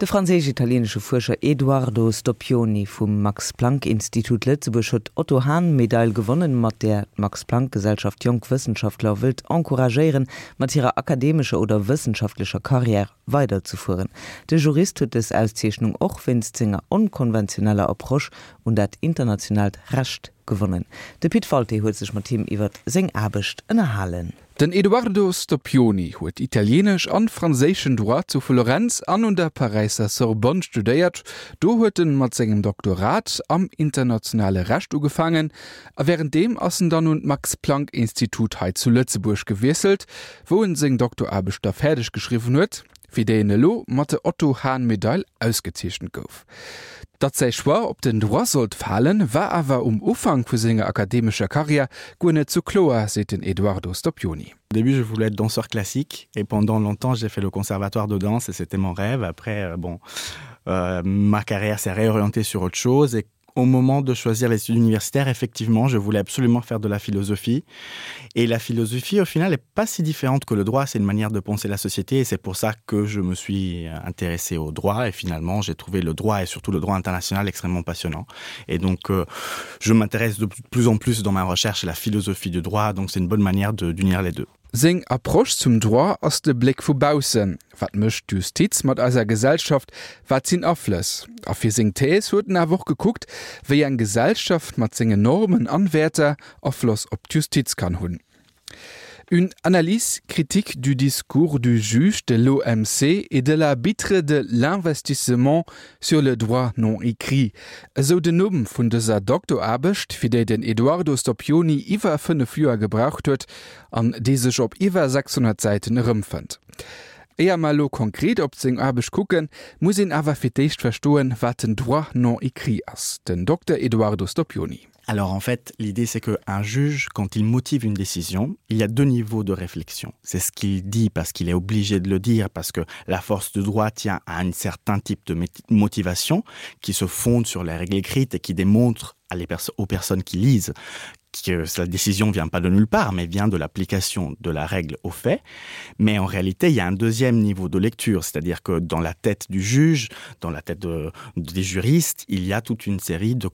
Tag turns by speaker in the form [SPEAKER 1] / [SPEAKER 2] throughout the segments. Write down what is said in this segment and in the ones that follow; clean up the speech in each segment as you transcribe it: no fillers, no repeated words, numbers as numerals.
[SPEAKER 1] De franséisch-italieenesche Fuerscher Eduardo Stoppioni vum Max-Planck-Institut Lëtzebuerg huet d'Otto-Hahn-Medail gewonnen, mat där d'Max-Planck-Gesellschaft jonk Wëssenschaftler wëllt encouragéieren, mat hirer akademescher oder wëssenschaftlecher Karriär weiderzefueren. De Jurist huet dës Auszeechnung och wéinst senger onkonventioneller Approche un dat internationaalt Recht gewonnen. De Pit Walté huet sech mat him iwwer seng Aarbecht ënnerhalen.
[SPEAKER 2] Den Edoardo Stoppioni huet italienesch an franséischen Droit zu Florenz an un der Paräisser Sorbonne studéiert. Do huet en mat sengem Doktorat am internationale Recht ugefaangen a wärenddeem ass en dann un d'Max-Planck-Institut hei zu Lëtzebuerg gewiesselt, wou en seng Doktoraarbecht da fäerdeg geschriwwen huet, fir déi en elo mat der Otto-Hahn-Medail ausgezeechent gouf. Datt säi Choix op den Droit sollt falen, war awer um Ufank vu senger akademescher Karriär guer net sou kloer, seet den Eduardo Stoppioni.
[SPEAKER 3] Au début, je voulais être danseur classique et pendant longtemps, j'ai fait le conservatoire de danse et c'était mon rêve. Après, euh, bon, euh, ma carrière s'est réorientée sur autre chose et au moment de choisir les études universitaires, effectivement, je voulais absolument faire de la philosophie. Et la philosophie, au final, n'est pas si différente que le droit, c'est une manière de penser la société et c'est pour ça que je me suis intéressé au droit et finalement j'ai trouvé le droit et surtout le droit international extrêmement passionnant. Et donc euh, je m'intéresse de plus en plus dans ma recherche à la philosophie du droit, donc c'est une bonne manière d'unir les deux.
[SPEAKER 2] Seng Approche zum Droit ass de Bléck vu baussen, Wat mécht d'Justiz mat eiser Gesellschaft, wat sinn Aflëss? A fir seng Thèse huet en awer och gekuckt, wéi eng Gesellschaft mat sengen Normen an Wäerter Afloss op d'Justiz kann hunn. Une analyse critique du discours du juge de l'OMC et de l'arbitre de l'investissement sur le droit non écrit, esou den Numm vun dëser Doktoraarbecht, fir déi den Eduardo Stoppioni iwwer 5 Joer gebraucht huet an déi sech op iwwer 600 Säiten erëmfënnt. Éier mer elo konkret op seng Aarbecht kucken, muss een awer fir d'éischt verstoen, wat den Droit non écrit ass. Den Dokter Eduardo Stoppioni.
[SPEAKER 3] Alors en fait, l'idée c'est qu'un juge, quand il motive une décision, il y a deux niveaux de réflexion. C'est ce qu'il dit parce qu'il est obligé de le dire, parce que la force de droit tient à un certain type de motivation qui se fonde sur les règles écrites et qui démontre à les pers aux personnes qui lisent que la décision vient pas de nulle part, mais vient de l'application de la règle au fait. Mais en réalité, il y a un deuxième niveau de lecture, c'est-à-dire que dans la tête du juge, dans la tête de, des juristes, il y a toute une série de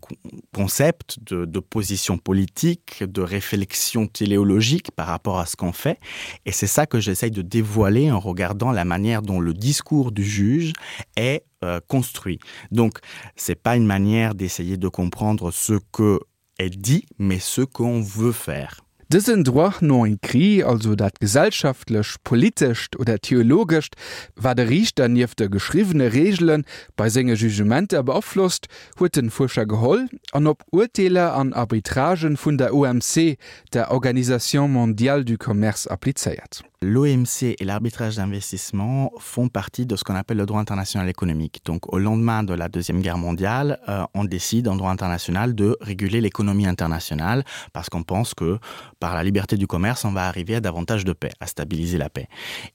[SPEAKER 3] concepts, de, de positions politiques, de réflexions téléologiques par rapport à ce qu'on fait. Et c'est ça que j'essaye de dévoiler en regardant la manière dont le discours du juge est euh, construit. Donc c'est pas une manière d'essayer de comprendre ce que est dit, mais ce qu'on veut faire.
[SPEAKER 2] Dësen Droit non écrit, also dat gesellschaftlech, politescht oder theologescht, wat e Riichter nieft de geschriwwene Reegele bei senge Jugementer beaflosst, huet den Fuerscher geholl an op Urteeler an Arbitragen vun der OMC, der Organisation mondiale du commerce, applizéiert.
[SPEAKER 3] L'OMC et l'arbitrage d'investissement font partie de ce qu'on appelle le droit international économique. Donc au lendemain de la Deuxième Guerre mondiale, euh, on décide en droit international de réguler l'économie internationale parce qu'on pense que par la liberté du commerce, on va arriver à davantage de paix, à stabiliser la paix.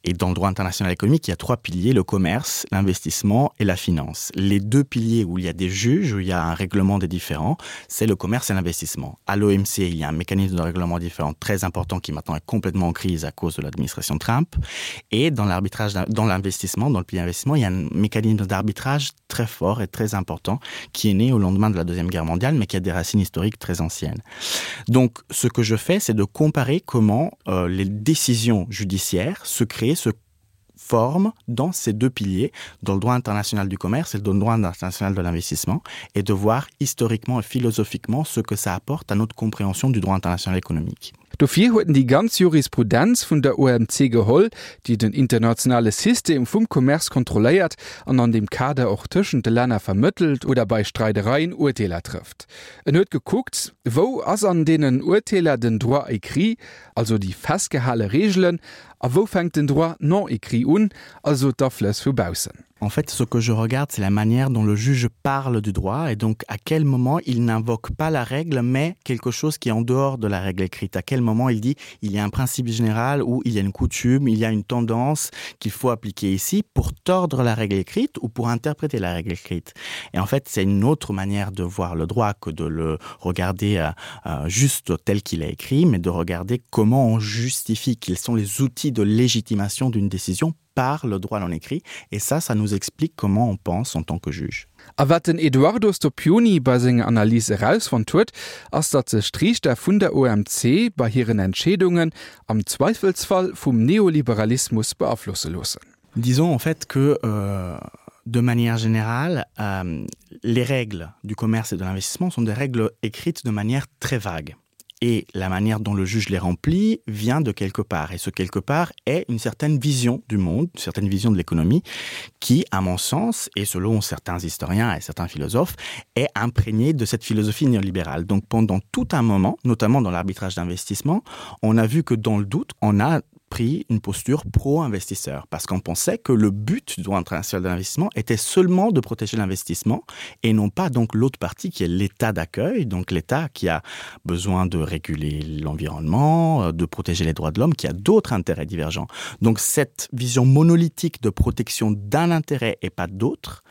[SPEAKER 3] Et dans le droit international économique, il y a trois piliers, le commerce, l'investissement et la finance. Les deux piliers où il y a des juges, où il y a un règlement des différents, c'est le commerce et l'investissement. À l'OMC, il y a un mécanisme de règlement différent très important qui maintenant est complètement en crise à cause de l'administration Trump. Et dans l'arbitrage, dans l'investissement, dans le pilier investissement, il y a un mécanisme d'arbitrage très fort et très important qui est né au lendemain de la Deuxième Guerre mondiale, mais qui a des racines historiques très anciennes. Donc, ce que je fais, c'est de comparer comment euh, les décisions judiciaires se créent, se forment dans ces deux piliers, dans le droit international du commerce et dans le droit international de l'investissement, et de voir historiquement et philosophiquement ce que ça apporte à notre compréhension du droit international économique.
[SPEAKER 2] Dofir huet en déi ganz Jurisprudenz vun der OMC geholl, déi den internationale System vum Commerce kontrolléiert an an deem Kader och tëschent de Länner vermëttelt oder bei Streidereien Urteeler trëfft. En huet gekuckt, wou ass an deenen Urteeler den Droit écrit, also déi festgehale Reegelen, a wou fänkt den Droit non écrit un, also d'Aflëss vu baussen.
[SPEAKER 3] En fait, ce que je regarde, c'est la manière dont le juge parle du droit et donc à quel moment il n'invoque pas la règle, mais quelque chose qui est en dehors de la règle écrite. À quel moment il dit il y a un principe général ou il y a une coutume, il y a une tendance qu'il faut appliquer ici pour tordre la règle écrite ou pour interpréter la règle écrite. Et en fait, c'est une autre manière de voir le droit que de le regarder euh, euh, juste tel qu'il est écrit, mais de regarder comment on justifie quels sont les outils de légitimation d'une décision. par le droit non écrit et ça ça nous explique comment on pense en tant que juge.
[SPEAKER 2] A wat den Eduardo Stoppioni bei senger Analys erausfonnt huet, ass datt sech d'Riichter vun der OMC bei hiren Entscheedungen am Zweifelsfall vum Neoliberalismus beaflosse loossen.
[SPEAKER 3] Disons en fait que euh, de manière générale, euh, les règles du commerce et de l'investissement sont des règles écrites de manière très vague et la manière dont le juge les remplit vient de quelque part et ce quelque part est une certaine vision du monde, une certaine vision de l'économie qui, à mon sens et selon certains historiens et certains philosophes, est imprégnée de cette philosophie néolibérale. Donc pendant tout un moment, notamment dans l'arbitrage d'investissement, on a vu que dans le doute, on a pris une posture pro-investisseur parce qu'on pensait que le but du droit international d'investissement était seulement de protéger l'investissement et non pas donc l'autre partie qui est l'état d'accueil, donc l'état qui a besoin de réguler l'environnement, euh, de protéger les droits de l'homme, qui a d'autres intérêts divergents. Donc cette vision monolithique de protection d'un intérêt et pas d'autre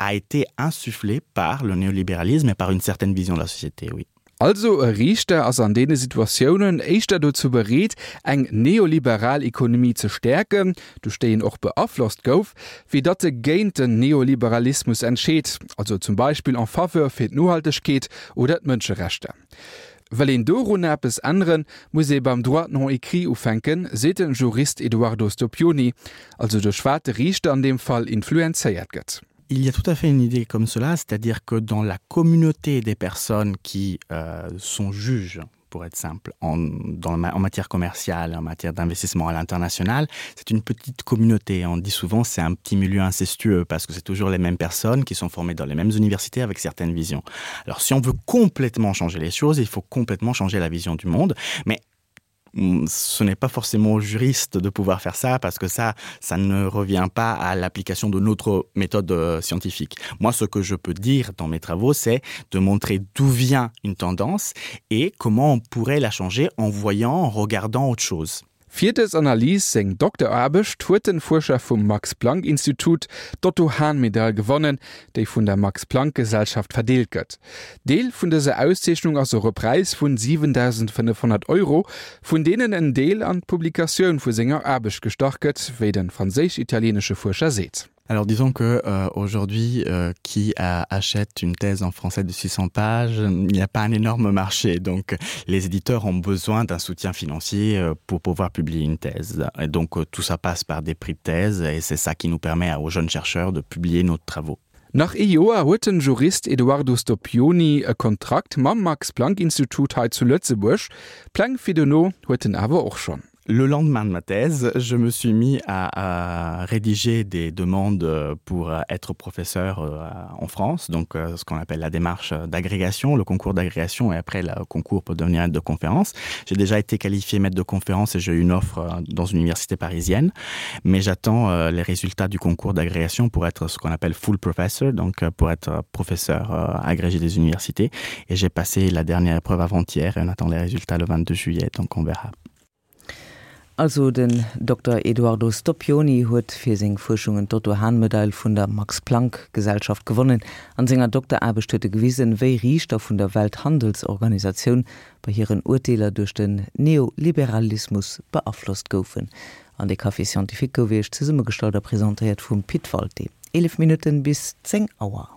[SPEAKER 3] a été insufflée par le néolibéralisme et par une certaine vision de la société oui.
[SPEAKER 2] Also e Riichter ass an deene Situatiounen éischter dozou bereet, eng neoliberal Ekonomie ze stäerken, duerch déi en och beaflosst gouf, wéi datt e géint den Neoliberalismus entscheet, also zum Beispill en faveur fir d'Nohaltegkeet oder d'Mënscherechter. Wëll een dorunner eppes änneren, muss ee beim Droit non écrit ufänken, seet de Jurist Eduardo Stoppioni, also duerch wat de Riichter an deem Fall influenzéiert gëtt.
[SPEAKER 3] Il y a tout à fait une idée comme cela, c'est-à-dire que dans la communauté des personnes qui euh, sont juges pour être simple en, dans, en matière commerciale, en matière d'investissement à l'international, c'est une petite communauté. On dit souvent c'est un petit milieu incestueux parce que c'est toujours les mêmes personnes qui sont formées dans les mêmes universités avec certaines visions. Alors si on veut complètement changer les choses, il faut complètement changer la vision du monde, mais Mm, ce n'est pas forcément au juriste de pouvoir faire ça parce que ça ça ne revient pas à l'application de notre méthode euh, scientifique. Moi ce que je peux dire dans mes travaux c'est de montrer d'où vient une tendance et comment on pourrait la changer en voyant en regardant autre chose.
[SPEAKER 2] Fir dës Analys, seng Dokteraarbecht, huet den Fuerscher vum Max-Planck-Institut d'Otto-Hahn-Medail gewonnen, déi vun der Max-Planck-Gesellschaft verdeelt gëtt. Deel vun dëser Auszeechnung ass och e Präis vun 7.500 Euro, vun deenen en Deel an d'Publikatioun vu senger Aarbecht gestach gëtt, wéi de franséisch-italieenesche Fuerscher seet.
[SPEAKER 3] Alors disons que euh, aujourd'hui euh, qui a, achète une thèse en français de 600 pages, il n'y a pas un énorme marché donc les éditeurs ont besoin d'un soutien financier euh, pour pouvoir publier une thèse et donc euh, tout ça passe par des prix de thèse et c'est ça qui nous permet aux jeunes chercheurs de publier nos travaux.
[SPEAKER 2] Nach ee Joer huet den Jurist Eduardo Stoppioni e Kontrakt mam Max-Planck-Institut hei zu Lëtzebuerg. Pläng fir dono huet en awer och schonn.
[SPEAKER 3] Le lendemain de ma thèse, je me suis mis à, à rédiger des demandes pour être professeur euh, en France, donc euh, ce qu'on appelle la démarche d'agrégation, le concours d'agrégation et après le concours pour devenir maître de conférence. J'ai déjà été qualifié maître de conférence et j'ai eu une offre euh, dans une université parisienne, mais j'attends les résultats du concours d'agrégation pour être ce qu'on appelle full professor, donc pour être professeur agrégé des universités et j'ai passé la dernière épreuve avant-hier et on attend les résultats le 22 juillet, donc on verra.
[SPEAKER 1] Also den Dokter Eduardo Stoppioni huet fir seng Fuerschungen d'Otto-Hahn-Medail vun der Max-Planck-Gesellschaft gewonnen. An senger Dokteraarbecht huet e gewisen, wéi Riichter vun der Welthandelsorganisatioun bei hiren Urteeler duerch den Neoliberalismus beaflosst goufen. An de Café Scientifique gouf Iech zesummegestallt a presentéiert vum Pit Walté. 11 Minutten bis 10 Auer.